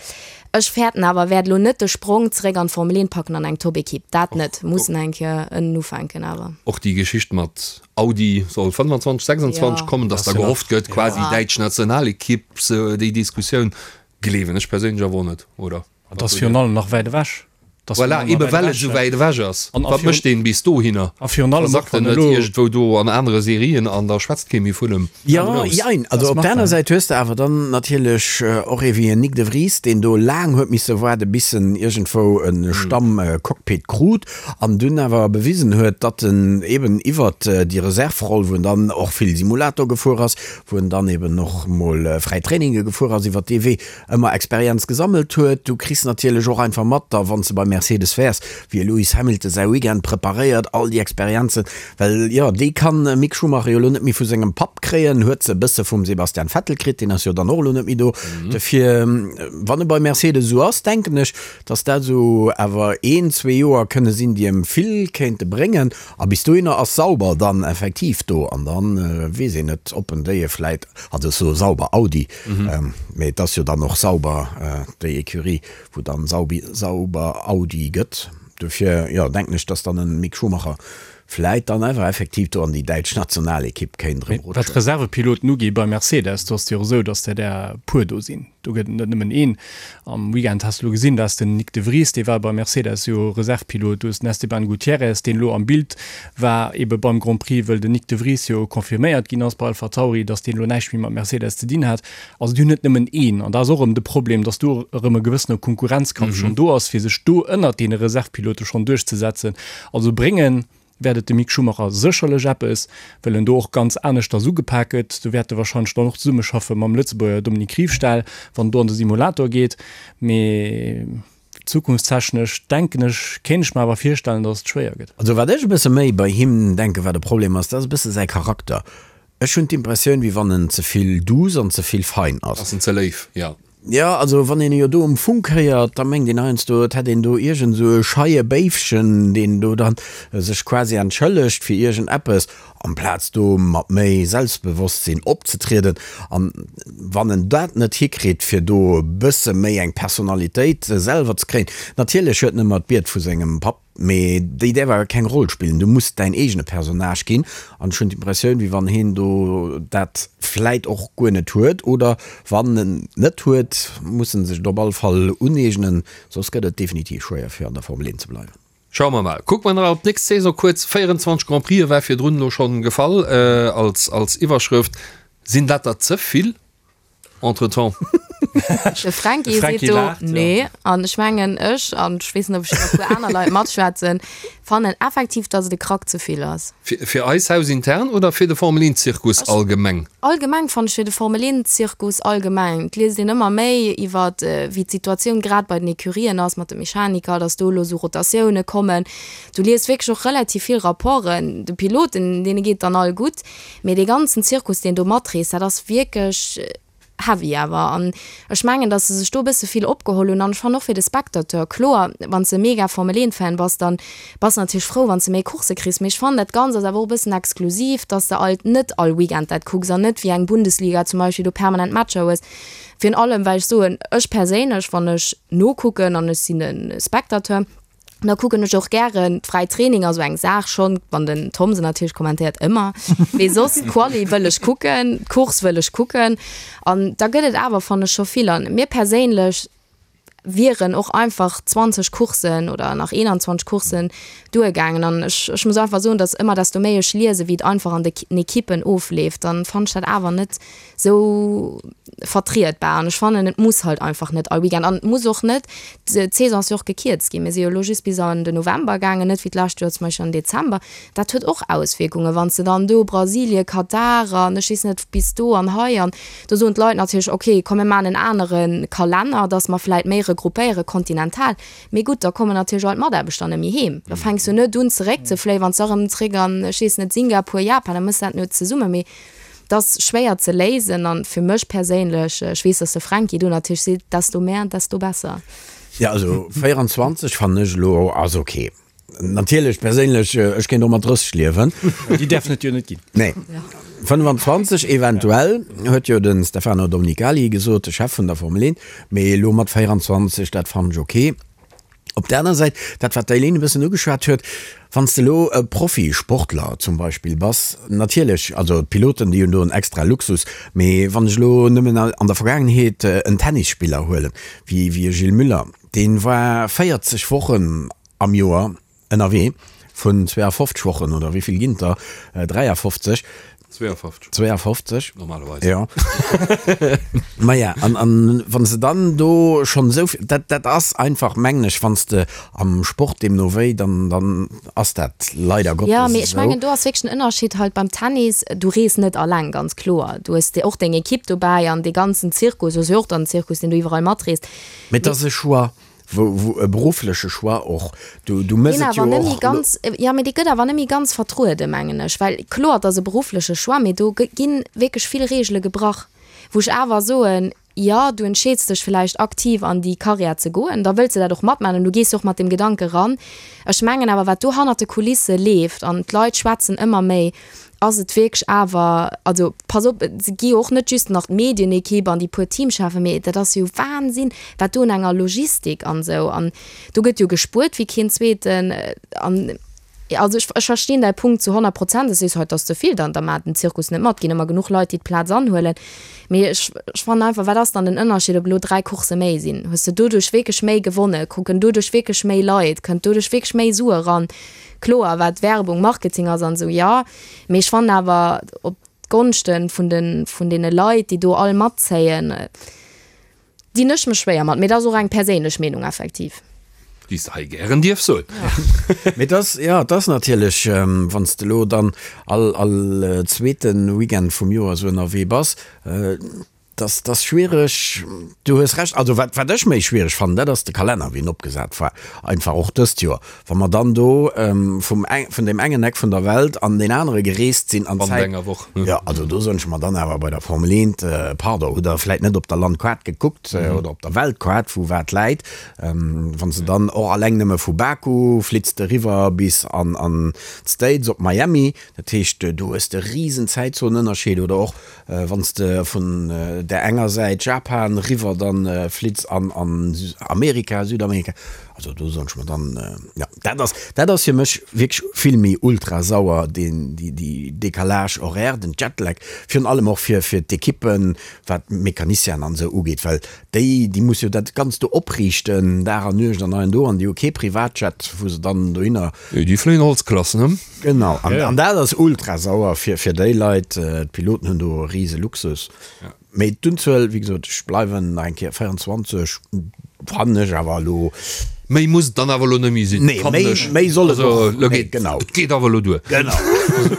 ech fäerten awer, e wäert elo net de Sprong zeréck an d'Formel 1 packen an eng Top-Ekipp. Dat net. Muss en eng Kéier ënnen ufänken awer. Och déi Geschicht mat Audi soll 25, 26 kommen, datt da gehofft gëtt, quasi däitsch Nationalekipp, déi Diskussioun gleewen ech perséinlech awer och net, oder? Et ass virun allem nach wäit ewech. Voilà, ebe well et esou wäit ewech ass. Wat mécht deen bis dohinner? A virun allem och, Versackt en wann net elo. iergendwou do an anere Serien an da schwätzt kee méi vun em? Jo, jein. Also op der aner Säit hues de awer dann natierlech och ee wéi en Nyck de Vries, deen do laang huet misse waarde bis en iergendwou e Stamm-Cockpit krut an dunn awer bewisen huet, datt en eben iwwert déi Reserve-Roll, wou en dann och vill Simulator gefuer ass, wou en dann eben och mol fräi Traininge gefuer ass, iwwert dee Wee ëmmer Experienz gesammelt huet. Du kriss natierlech och einfach mat, da wann s de bei Mercedes wäers, wéi e Lewis Hamilton säi Weekend preparéiert, all déi Experienzen, well jo, déi kann e Mick Schumacher jo elo net méi vu sengem Papp kréien, huet se e bësse vum Sebastian Vettel kritt, deen ass jo dann och elo net méi do. Dofir, wann e bei Mercedes esou ass, denken ech, dass dat esou awer een, zwee Joer kënne sinn, déi em vill kéinte bréngen. A bis dohinner ass Sauber dann effektiv do an dann weess een net, ob en déi vläit, also ech soe Sauber, Audi, mee et ass jo dann och Sauber, déi Ecurie, wou dann Sauber Audi gëtt. Dofir, jo, denken ech, dass dann en Mick Schumacher vläit dann awer effektiv do an déi däitsch Nationalekipp kéint erëm rutschen. Wat d'Reservepiloten ugeet bei Mercedes, do ass et jo och esou, dass der där e puer do sinn. Do gëtt et net nëmmen een. Am Weekend has de elo gesinn, dat ass den Nyck de Vries, dee war bei Mercedes jo Reservepilot. Du hues den Esteban Gutierrez, deen elo am Bild war ebe beim Grand Prix, wëll den Nyck de Vries jo confirméiert ginn ass bei AlphaTauri, datt deen elo näischt méi mat Mercedes ze dinn hat. Also déi hunn net nëmmen een. An da ass och erëm de Problem, datt do erëm e gewëssene Konkurrenzkampf schonn do ass, fir sech do ënnert deene Reservepilote schonn duerchzesetzen. Also bréngen wäert et dem Mick Schumacher sécherlech eppes, well en do och ganz aneschters ugepak gëtt. Do wäert e warscheinlech dann och zesummeschaffe mam Lëtzebuerger Dominique Riefstahl, wann en do an de Simulator geet. Mee zukunftstechnesch denken ech, kéint ech mer awer virstellen, datt et schwéier gëtt. Also wat ech e bësse méi bei him denken, wat e Problem ass, dat ass e bësse säi Charakter. Ech hunn d'Impressioun, wéi wann en ze vill douce an ze vill fein ass. Ass en ze léif, jo. Jo, also wann een e jo do um Funk héiert, da mengt een heiansdo, et hätt een do iergend esou e scheie Béifchen, deen do dann sech quasi entschëllegt fir iergend eppes, amplaz do mat méi Selbstbewosstsinn opzetrieden. An wann en dat net hikritt, fir do e bësse méi eng Personalitéit selwer ze kréien, natierlech huet en ëmmer d'Bied vu sengem Papp, Mee déi däerf awer keng Roll spillen. Du muss däin eegene Personnage ginn. An ech hunn d'Impressioun, wéi wann heen do dat vläit och guer net huet. Oder wann en et net huet, muss en sech et op alle Fall uneegnen, soss gëtt et definitiv schwéier fir an der Formel 1 ze bleiwen. Schaue mer mal. Kucke mer nach op d'nächst Saison kuerz. 24 Grand Prixë war virdrun elo schonn gefall als als Iwwerschrëft. Sinn dat der ze vill? Entretemps. De Franky seet do nee. An ech mengen ech, an ech weess net ob ech e puer aner Leit matschwätzen, fannen effektiv, datt et e Krack ze vill ass. Fir eis hausintern oder fir de Formel 1 Zirkus allgemeng? Allgemeng fannen ech, fir de Formel 1 Zirkus allgemeng. Et liest een ëmmer méi iwwer wéi d'Situatioun grad bei den Ecurien ass mat de Mechaniker, datt do elo esou Rotatioune kommen. Du liest wierklech och relativ vill Rapporten. De Piloten, deene geet et dann all gutt. Mee dee ganzen Zirkus, deen do matreest, dat ass wierklech. Heavy awer. An ech mengen, datt se sech do e bësse vill opgeholl hunn. An ech fannen och fir de Spectateur, kloer, wann s de mega Formel 1 Fan bass, dann bass de natierlech frou, wann s de méi Coursse kriss. Mee ech fannen, dat Ganzt ass awer och e bëssen exklusiv, datt s de alt net all Weekend dat kucks an net wéi eng Bundesliga zum Beispill do permanent Matcher hues. Virun allem, well ech soen, ech perséinlech, wann ech nokucken an ech sinn e Spectateur, Da kucken ech och gären d'fräi Training, also eng Saach schonn, wann den Tom se natierlech kommentéiert, ëmmer, mee soss d'Quali wëll ech kucken, d'Course wëll ech kucken an da gëtt et awer, fannen ech, scho vill. An mir perséinlech wieren och einfach 20 Courssen oder nach 21 Courssen duergaangen an ech, ech muss einfach soen, datt ëmmer desto méi ech liesen, wéi et einfach an de Ekippen ofleeft, dann fannen ech dat awer net sou vertrietbar an ech fannen et muss halt einfach net all Weekend an et muss och net, d'Saison ass jo och gekierzt ginn, mir si jo elo just bis an den November gaangen, net wéi d'lescht Joer zum Beispill an den Dezember, dat huet och Auswierkungen, wann s de dann do Brasilien, Katar an ech weess net bis do an hei an do soen d'Leit natierlech ok komm mir maachen en anere Kalenner, datt mer vläit méi regroupéiere kontinental, mee gutt da kommen natierlech all d'Mataarbechter net méi heem, da fänks du net un zeréckzefléien, wann s de erëm zeréck an ech weess net Singapur, Japan, da mëss dat net zesumme, mee. Dat ass schwéier ze léisen an fir mech perséinlech, ech weess, dass de Franky do natierlech seet, desto mehr, desto besser. Jo, also 24 fannen ech elo ass ok. Natierlech perséinlech, ech kéint och mat 30 liewen. Déi däerfen et jo net ginn. Nee. 25 eventuell, huet jo de Stefano Domenicali gesot, de Chef vun der Formel 1. Mee elo mat 24, dat fannen ech ok. Op der aner Säit, dat wat d'Eileen e bëssen ugeschwat huet, wann s de elo e Profisportler zum Beispill bass, natierlech, also d'Piloten déi hunn do en extra Luxus, mee wann ech elo nëmmen an der Vergaangenheet en Tennisspiller huelen, wéi e Gilles Müller, dee war 40 Wochen am Joer ënnerwee, vun 52 Wochen oder wéi vill ginn et der, 53, 52. 52. Normalerweis. Ja. Maja, an, an wann se dann do schonn esou vill, dat, dat ass einfach, mengen ech, wann s de am Sport deemno wéi, dann, dann ass dat leider Gottes Ja, mee ech esou. mengen, do ass wierklech den Ënnerscheed halt beim Tennis, du rees net alleng, ganz kloer. Du hues och deng Ekipp dobäi an dee ganzen Zirkus ass jo och dann en Zirkus, deen du iwwerall matreest. Mee et ass e Choix. Wou, wou e beruffleche Choix och, du, du mëss Deen et jo awer net méi och. ganz, jo, mee dee gëtt awer net méi ganz vertrueden, mengen ech. Well kloer, et ass e beruffleche Choix, mee do gi wierklech vill Reegele gebrach, wou ech awer soen, jo, du entscheeds dech vläicht aktiv an déi Karriär ze goen, da wëlls de dat och matmaachen an du gees jo och mat deem Gedanke ran. Ech mengen awer, wat do hannert de Kulisse leeft, an d'Leit schwätzen ëmmer méi, ass et wierklech awer, also pass op, et gi jo och net just nach d'Medienekipp an déi puer Teamcheffen, mee dat ass jo Wahnsinn, wat do un enger Logistik an esou, an do gëtt jo gespuert wéi keen Zweeten. An also ech, ech verstinn däi Punkt zu 100 Prozent, dass du sees, hei, et ass ze vill, dann da maacht den Zirkus net mat, ginn ëmmer genuch Leit, déi d'Plaz anhuelen. Mee ech, ech fannen einfach, wat ass dann den Ënnerscheed, ob elo 3 Coursse méi sinn? Hues de doduerch wierklech méi gewonnen? Kucken doduerch wierklech méi Leit? Kënnt doduerch wierklech méi Sue eran? Kloer, wat Werbung, Marketing ass an esou, jo. Mee ech fannen awer, op d'Gonschte vun de, vun deene Leit, déi do all matzéien, dinn ech mech schwéier mat. Mee dat ass och eng perséinlech Meenung effektiv. Déi s de hei gären dierfs soen. Mee et ass, jo, et ass natierlech, wann s de elo dann all, all zweete Weekend vum Joer esou ënnerwee bass, Dass dass schwiereg, du hues Recht. Also wat wat ech méi schwiereg fannen, dat ass de Kalenner wéi en opgesat war, einfach och dëst Joer, wa mer dann do vum eng vun deem engen Eck vun der Welt an deen anere gereest sinn an Bannent Zäit. enger Woch. Jo, also do soen ech mer dann awer bei der Formel 1, pardon, hutt der vläit net op der Landkaart gekuckt oder op der Weltkaart wou wat läit, wann s de dann och alleng nëmme vu Baku flitts de eriwwer bis an an d'States op Miami, dat heescht do hues de risen Zäitzonenënnerscheed oder och Wann s de vun där enger Säit, Japan, riwwer dann flitts an an Amerika, Südamerika, also do soen ech mer dann, jo, dat ass, dat ass fir mech wierklech vill méi ultra sauer, deen, déi, déi Décalage horaire, den Jetlag, virun allem och fir, fir d'Ekippen, wat d'Mecanicienen an esou ugeet, well déi, déi musse jo dat Ganzt do opriichten, Dag an Nuecht an hei an do, an déi hu kee Privatjet, wou se dann dohinner. Déi fléien Holzklass, ne? Genau, an dat ass ultra sauer fir fir déi Leit. D'Piloten hunn do e rise Luxus. Mee d'Unzuel, wéi gesot, ech bleiwen nach eng Kéier 24, fannen ech awer elo. Méi muss et dann awer elo net méi sinn, Nee, fannen méi, ech. méi soll et Also och, elo nee, geet, genau. et geet awer elo duer. Genau.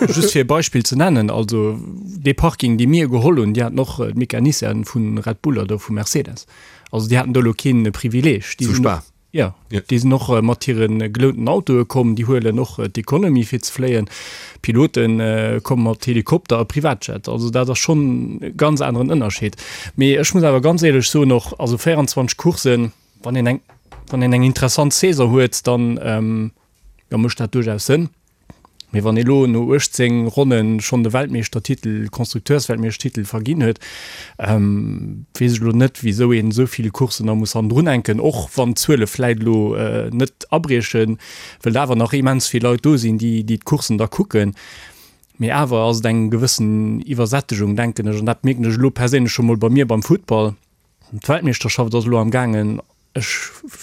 Just fir e Beispill ze nennen, also dee Parking, dee mir geholl hunn, déi haten och d'Mecanicienen vu Red Bull oder vu Mercedes. Also déi haten do elo kee Privileeg. Déi Zu sinn Spa. Jo, déi sinn och mat hire gelounten Autoe komm, déi huelen och d'Economy fir ze fléien. D'Pilote komme mat Helikopter a Privatjet. Also dat ass schonn e ganz aneren Ënnerscheed. Mee ech muss awer ganz éierlech soen och, also 24 Courssen, wann een eng, wann een eng interessant Saison huet, dann, jo, mécht dat duerchaus Sënn. Mee wann ee lo no 18 Ronnen schonn de Weltmeeschtertitel, Konstrukteursweltmeeschtertitel verginn huet, weess ech elo net, wisou een esou vill Courssen nach muss hannendrun hänken, och wann d'Zuele vläit elo net abriechen, wëll awer nach immens vill Leit do sinn, déi déi d'Courssen da kucken. Mee awer ass et eng gewëssen Iwwersättegung, denken ech, an dat mierken ech elo perséinlech scho mol bei mir beim Futtball. D'Weltmeeschterschaft ass elo am gaangen. Ech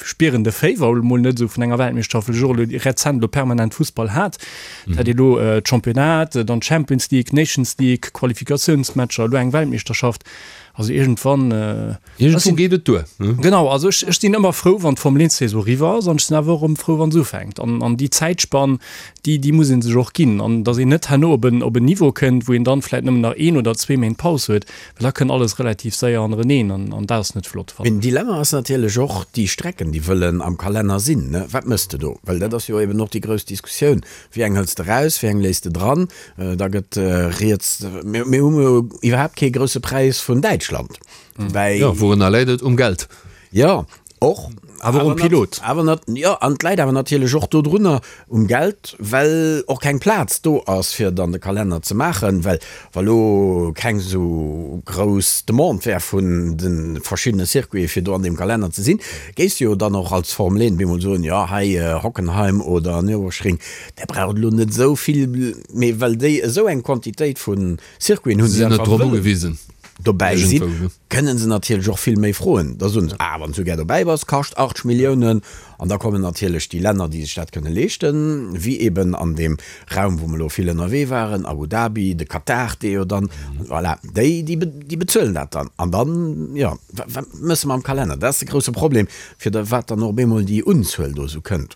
spieren de Féiwer elo mol net esou vun enger Weltmeeschterschaft, well ech och elo rezent elo permanent Fussball hat. Et hat ee elo d'Championnat, dann d'Champions League, d'Nations League, Qualifikatiounsmatcher, elo eng Weltmeeschterschaft. Also iergendwann. Iergendwou geet et duer, ne? Genau, also ech, ech sinn ëmmer frou, wann d'Formel 1 Saison eriwwer ass an ech sinn awer och erëm frou, wa se ufänkt. An, an déi Zäitspann, déi, déi muss ee sech och ginn. An datt een net herno op en, op en Niveau kënnt, wou een dann vläicht nëmmen nach een oder zwee Méint Paus huet, Well da kënnt alles relativ séier hannereneen an an dat ass net flott, fannen ech. Een Dilemma ass natierlech och déi Strecken, déi wëllen am Kalenner sinn. Wat mëss de do? Well dat ass jo eben och déi grouss Diskussioun. Wéi eng hëls de raus, wéi eng léiss de dran? Da gëtt rieds, mir hu jo iwwerhaapt kee Grousse Präis vun Däitschland, woubäi. Jo, wourunner läit et? Um Geld? Jo, och. Awer och um Pilot. Awer nat, jo, an et läit awer natierlech och dodrunner, um Geld, well och keng Plaz do ass, fir dann de Kalenner ze maachen, well wa lo keng esou grouss Demande wär vun de verschiddene Circuiten, fir do an deem Kalenner ze sinn, géifs de jo dann och als Formel 1 bemol soen, jo, hei Hockenheim oder Nürburgring, där braucht elo net esou vill, mee well déi esou eng Quantitéit vu Circuiten hunn, déi einfach wëllen dobäi sinn, kënnen se natierlech och vill méi froen. Da soen se, ah, wann s du gär dobäi bass, kascht 80 Milliounen. An da kommen natierlech déi Länner, déi sech dat kënne leeschten, wéi eben an deem Raum, wou mer elo vill ënnerwee waren, Abu Dhabi, de Katar, dee jo dann, voilà, déi, déi bezuelen dat dann. An dann, jo, wat mësse mer am Kalenner? Dat ass de grousse Problem, fir wat dann och op eemol déi Unzuel do esou kënnt.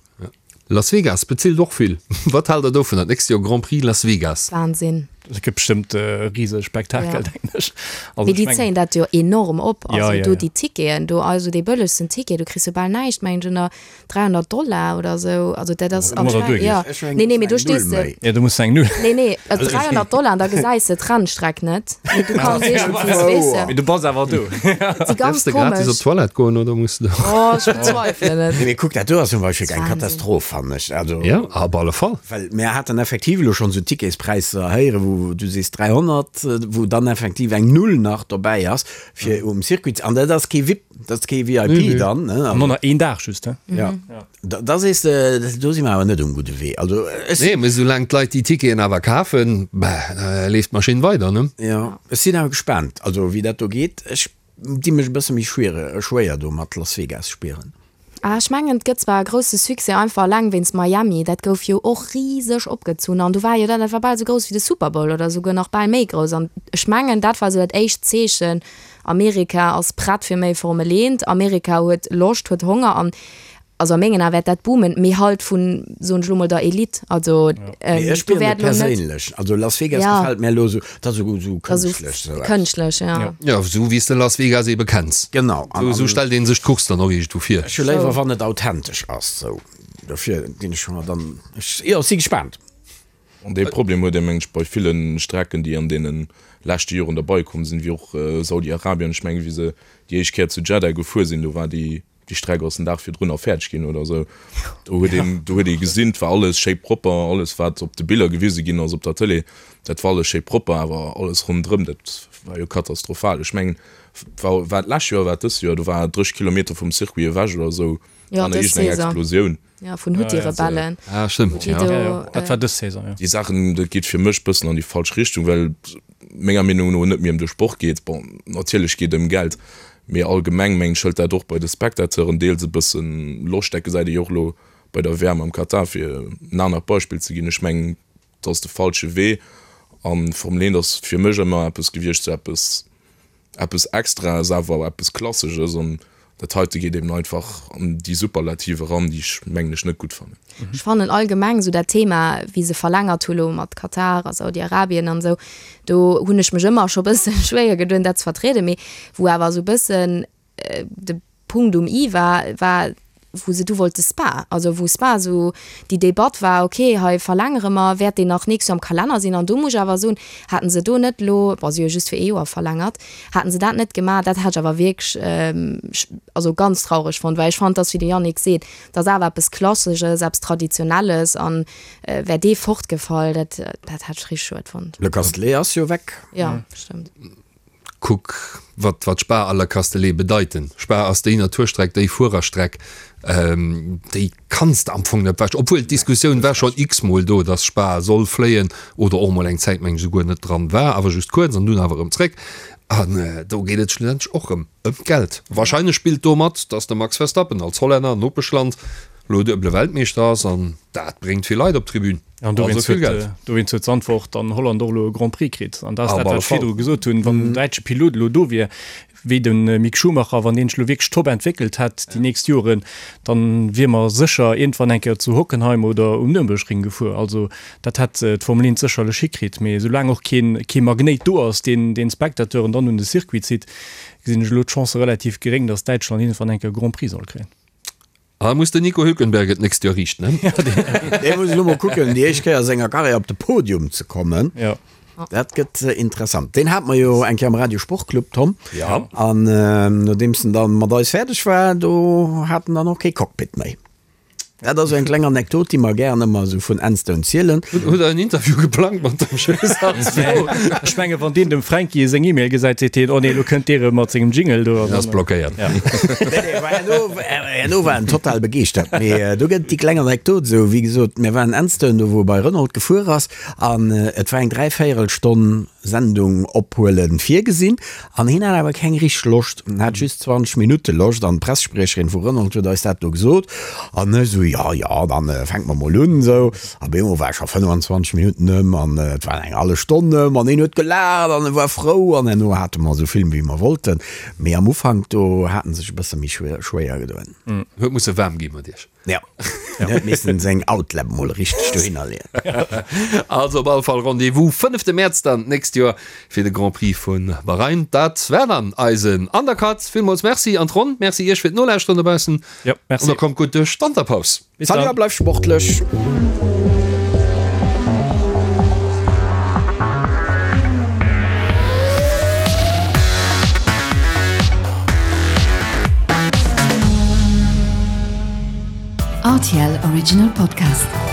Las Vegas bezilt och vill. Wat haalt der dovun, dat nächst Joer Grand Prix Las Vegas? Wahnsinn. Dat gëtt bestëmmt e rise Spektakel, denken ech. Also Mee déi zéien dat jo enorm op. Also do déi Ticketen do, also dee bëllegsten Ticket, do kriss du bal näischt, mengen ech, ënner 300 Dollar oder esou. Also dat ass anscheinend, jo. Nee, nee, mee do stees de. Jo, do muss de eng Null. Nee, nee, 300 Dollar an da gesäis de d'Rennstreck net. Mee du kanns iergendwéi, weess de. Mee du bass awer do. Si ganz Däerfs de gratis op d'Toilette goen oder muss de. Oh, ech bezweifelen et. Nee, mee kuck, dat do ass zum Beispill eng Katastroph, fannen ech. Also. Jo, op alle Fall. Well mir haten effektiv elo schonn esou Ticketspräisser héieren, wou du sees 300, wou dann effektiv eng Null nach dobäi ass, fir um Circuit ze. An dat ass kee VIP, dat ass kee VIP dann, ne? An och nach een Dag just, he? Jo. Da sees de, do si mer awer net um gudde Wee. Also ech. Nee, mee soulaang d'Leit déi Ticketen awer kafen, bah, da leeft d'Maschinn weider, ne? Jo, ech sinn awer gespaant, also wéi dat do geet. Ech di mech e bësse méi schwéier do mat Las Vegas spieren. Ah, ech mengen, et gëtt zwar e grousse Succès, einfach eleng wéinst Miami. Dat gouf jo och riseg opgezunn an do war jo dat, dat war bal esou grouss wéi de Super Bowl oder esouguer nach bal méi grouss. An ech mengen, dat war esou dat éischt Zeechen, Amerika ass prett fir méi Formel 1, Amerika huet Loscht, huet Honger an also a mengen Ae wäert dat boomen, mee halt vun, soen ech elo mol, der Elite. Also Mee ech do spieren et wäert elo net, perséinlech. Also Las Vegas ja, gefält mär elo esou, dat ass esou esou dat ass esou kënschtlech esou eppes. kënschtlech, ja. Jo, esou wéi s de Las Vegas ebe kenns. Genau. An, Esou an stellt ee sech d'Course dann och iergendwou vir. ech hu léiwer wann et authentesch ass esou. Dofir ginn ech mer dann, ech, jo, si gespaant. An dee Problem huet ee mengen ech bei ville Strecken, déi an deene leschte Joren derbei komm sinn, wéi och Saudi-Arabien. Ech mengen, wéi se déi éischt Kéier zu Jeddah gefuer sinn, do war déi déi Streck ass den Dag virdrun nach fäerdeg ginn oder esou. Do huet een, do huet ee gesinn, et war alles schéi propper, alles wat op de Biller gewise ginn ass op der Tëlee, dat war alles schéi propper, awer alles ronderëm, dat war jo katastrophal. Ech mengen, war war et d'lescht Joer, war et dëst Joer, do war 30 Kilometer vum Circuit ewech oder esou, Jo, war nach dës iergendeng Saison. Explosioun. Ja, vun Huthi-Rebellen. Ah, stëmmt, Déi ja. do, Ja, ja, dat war dës Saison, jo. Déi Saachen, dat geet fir mech bëssen an déi falsch Richtung, well et menger Meenung no net méi ëm de Sport geet. Bon, natierlech geet ëm Geld, mee allgemeng mengen ech hëlt dat och bei de Spectateuren deels e bëssen Loscht. Dat gesäit ee jo och elo bei der WM am Katar, fir en anert Beispill ze ginn. Ech mengen, dat ass de falsche Wee an Formel 1 ass fir mech ëmmer eppes gewiescht, sou eppes eppes Extraes, awer eppes Klassesches an dat heite geet eben einfach an déi Superlative eran, déi ech mengen ech net gutt fannen. Ech fannen allgemeng esou dat Thema, wéi se verlängert hu lo mat Katar a Saudi-Arabien an esou, do hunn ech mech ëmmer scho bësse schwéier gedoen dat ze vertrieden, mee wou awer esou bëssen de Punkt um i war, war. wou se du wollte Spa, also wou Spa esou déi Debatt war, okay, hei verlängere mer, wäert deen nach nächst Joer am Kalenner sinn? An do muss ech awer soen, hätten se do net elo, bon, si hu jo just fir ee Joer verlängert, hätten se dat net gemaach, dat hätt ech awer wierklech, also ganz traureg fonnt, well ech fand, dass, wéi de Yannick seet, dat ass awer eppes Klassesches, eppes Traditionelles an wär dee fortgefall, dat, dat hätt ech richteg schued fonnt. Le Castellet ass jo weg. Jo, stëmmt. Kuck, wat, wat Spa a Le Castellet bedeiten. Spa ass déi Naturstreck, déi Fuererstreck, déi kanns de am Fong net wech. Obwuel d'Diskussioun war schonn x-mol do, dass Spa soll fléien oder och mol eng Zäit, meng ech, esouguer net dran war, awer just kuerz an dunn awer erëm zréck. An do geet et schlussendlech och erëm ëm d'Geld. Wahrscheinlech spillt do mat, dass de Max Verstappen als Hollänner, Nopeschland, elo duebele Weltmeeschter ass an dat bréngt vill Leit op d'Tribün. An dowéinst huet, Geld. Dowéinst huet Zandvoort an Holland och elo e Grand Prix kritt. An dat ass dat, wat ech virdru gesot hunn, Wann en däitsche Pilot elo do wier, wéi de Mick Schumacher, wann deen sech elo wierklech top entwéckelt hätt déi nächst Joren, dann wier mer sécher iergendwann eng Kéier zu Hockenheim oder um Nürnbergring gefuer. Also dat hätt d'Formel 1 sécherlech hikritt. Mee soulaang och keen, kee Magnéit do ass, deen, deen d'Spectateuren dann un de Circuit zitt, gesinn ech elo d'Chance relativ geréng, datt Däitschland iergendwann eng Kéier e Grand Prix soll kréien. Ah, muss den Nico Hülkenberg et nächst Joer riichten, ne? Dee muss elo mol kucken, déi éischt Kéier a senger Karriär op de Podium ze kommen. Jo. Dat gëtt interessant. Deen hate mer jo eng Kéier am Radio Sportclub, Tom. Ja. An nodeems en dann mat eis fäerdeg war, do hat en dann och kee Cockpit méi. Dat ass esou eng kleng Anekdot, déi mer gären ëmmer esou vun Enstone zielen. Hutt Der en Interview geplangt mat dem Schwéiss? Ech menge wann deen dem Fränki seng E-Mail gesäit, seet hien, oh nee, elo kënnt dee rëm mat sengem Jingle do. Deen ass blockéiert. Herno war en total begeeschtert. Mee do gëtt et déi kleng Anekdot esou, wéi gesot, mir waren Enstone, do wou e bei Renault gefuer ass, an et war eng Dräivéierelstonn Sendung ophuelen virgesinn, an hien hat awer keng richteg Loscht, en hat just 20 Minutte Loscht, an d'Pressespriecherin vu Renault huet eis dat do gesot, an ech esou, jo, jo, dann fänke mer mol un esou. A bemol war scho 25 Minutten ëm an et war eng hallef Stonn ëm an hien huet gelaacht an e war frou an herno hate mer esou vill wéi mer wollten. Mee am Ufank do hat en sech e bësse méi schwéier gedoen. Huet musse waarm gi mat iech. Jo, en huet missen seng Outlap mol richteg dohinner leeën. Also op alle Fall Rendez-vous fënnefte Mäerz dann d'nächst Joer fir de Grand Prix vu Bahrain. Dat war dann eisen Undercut. Villmools Merci an d'Ronn. Merci iech fir d'Nolauschteren dobaussen. Jo, merci. An da kommt gutt duerch d'Wanterpaus. Bis dann. Salut a bleif sportlech! RTL Original Podcast.